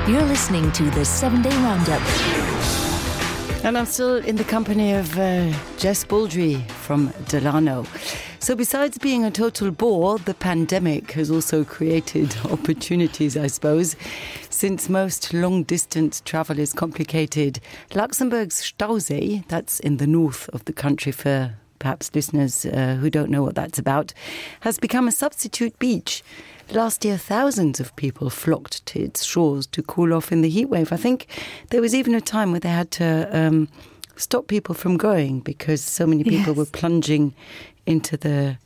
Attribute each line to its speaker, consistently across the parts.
Speaker 1: You're listening to the 7-Day Roundup.
Speaker 2: And I'm still in the company of Jess Baldry from Delano. So besides being a total bore, the pandemic has also created opportunities, I suppose. Since most long-distance travel is complicated, Luxembourg's Stausee, that's in the north of the country for perhaps listeners who don't know what that's about, has become a substitute beach. Last year, thousands of people flocked to its shores to cool off in the heatwave. I think there was even a time where they had to stop people from going because so many people were plunging into the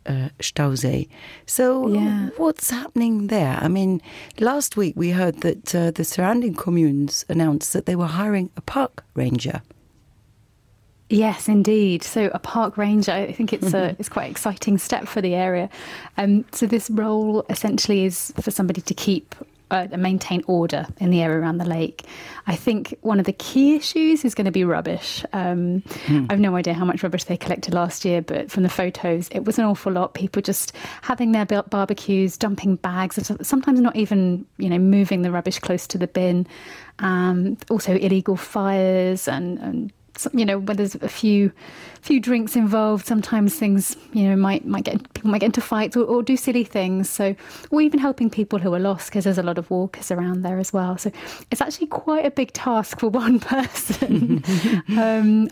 Speaker 2: Stausee. So what's happening there? I mean, last week we heard that the surrounding communes announced that they were hiring a park ranger.
Speaker 3: Yes, indeed. So a park ranger, I think it's quite an exciting step for the area. So this role essentially is for somebody to keep and maintain order in the area around the lake. I think one of the key issues is going to be rubbish. I've no idea how much rubbish they collected last year, but from the photos, it was an awful lot. People just having their barbecues, dumping bags, sometimes not even, moving the rubbish close to the bin. Also illegal fires and when there's a few drinks involved, sometimes things, people might get into fights or do silly things. So, or even helping people who are lost, because there's a lot of walkers around there as well. So it's actually quite a big task for one person.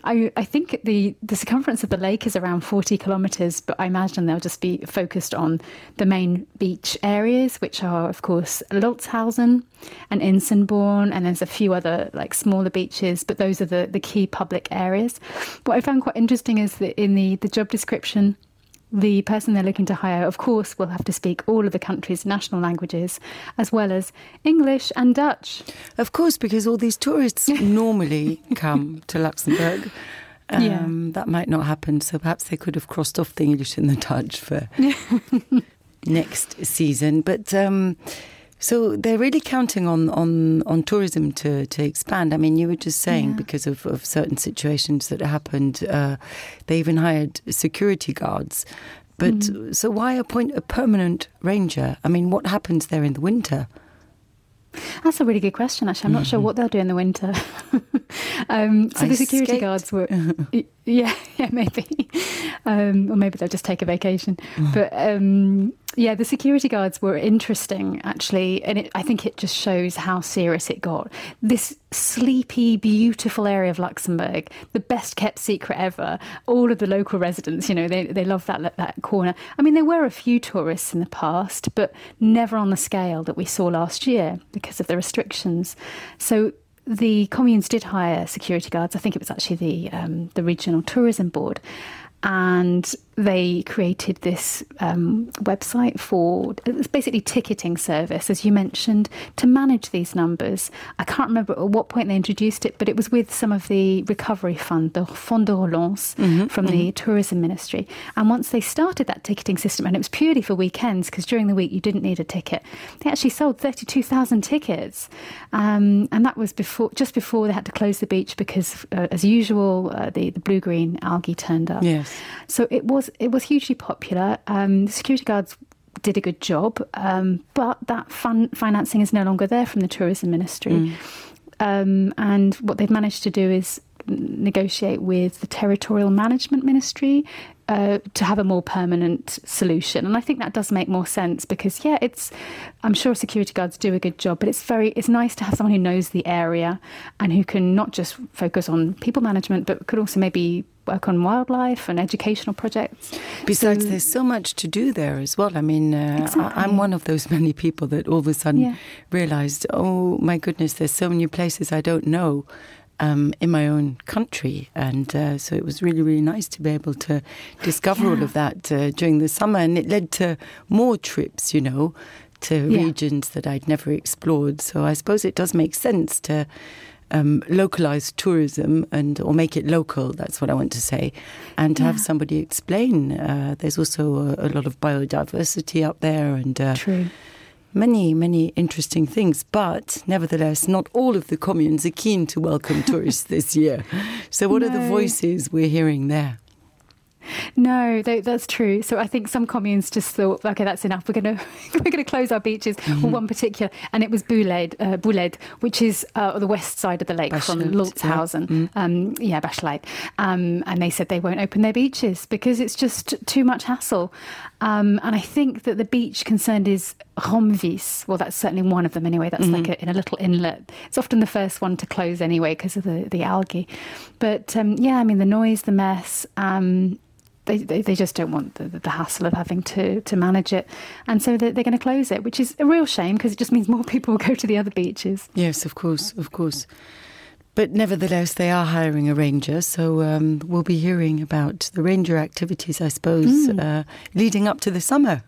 Speaker 3: I think the circumference of the lake is around 40 kilometres, but I imagine they'll just be focused on the main beach areas, which are, of course, Lolzhausen and Insenborn, and there's a few other smaller beaches, but those are the key public areas. What I found quite interesting is that in the job description, the person they're looking to hire, of course, will have to speak all of the country's national languages, as well as English and Dutch.
Speaker 2: Of course, because all these tourists normally come to Luxembourg. That might not happen, so perhaps they could have crossed off the English and the Dutch for next season. But so they're really counting on tourism to expand. I mean, you were just saying because of certain situations that happened, they even hired security guards. But so why appoint a permanent ranger? I mean, what happens there in the winter?
Speaker 3: That's a really good question, actually. I'm not sure what they'll do in the winter. So the security guards were... maybe. Or maybe they'll just take a vacation. But the security guards were interesting, actually. And I think it just shows how serious it got. This sleepy, beautiful area of Luxembourg, the best kept secret ever. All of the local residents, they love that corner. I mean, there were a few tourists in the past, but never on the scale that we saw last year because of the restrictions. So the communes did hire security guards. I think it was actually the Regional Tourism Board. And they created this website it's basically ticketing service, as you mentioned, to manage these numbers. I can't remember at what point they introduced it, but it was with some of the recovery fund, the Fond de Relance from the Tourism Ministry. And once they started that ticketing system, and it was purely for weekends, because during the week you didn't need a ticket, they actually sold 32,000 tickets. And that was just before they had to close the beach because, as usual, the blue-green algae turned up.
Speaker 2: Yes.
Speaker 3: So it was hugely popular. The security guards did a good job, but that financing is no longer there from the Tourism Ministry. And what they've managed to do is negotiate with the Territorial Management Ministry to have a more permanent solution. And I think that does make more sense because, I'm sure security guards do a good job, but it's nice to have someone who knows the area and who can not just focus on people management, but could also maybe work on wildlife and educational projects.
Speaker 2: Besides, there's so much to do there as well. I mean, exactly. I'm one of those many people that all of a sudden realised, oh my goodness, there's so many places I don't know in my own country. And so it was really, really nice to be able to discover all of that during the summer. And it led to more trips, to regions that I'd never explored. So I suppose it does make sense to localise tourism or make it local, that's what I want to say, and to have somebody explain. There's also a lot of biodiversity up there and
Speaker 3: True.
Speaker 2: Many, many interesting things. But nevertheless, not all of the communes are keen to welcome tourists this year. So what are the voices we're hearing there?
Speaker 3: No, that's true. So I think some communes just thought, okay, that's enough. We're gonna close our beaches. Well, one particular, and it was Bouled, which is the west side of the lake from Lulzhausen. Bachelet. And they said they won't open their beaches because it's just too much hassle. And I think that the beach concerned is Romvis. Well, that's certainly one of them anyway. That's like in a little inlet. It's often the first one to close anyway because of the algae. But the noise, the mess. They just don't want the hassle of having to manage it. And so they're going to close it, which is a real shame because it just means more people will go to the other beaches.
Speaker 2: Yes, of course. But nevertheless, they are hiring a ranger, so we'll be hearing about the ranger activities, I suppose, leading up to the summer.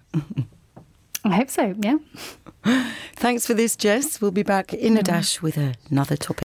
Speaker 3: I hope so, yeah.
Speaker 2: Thanks for this, Jess. We'll be back in a dash with another topic.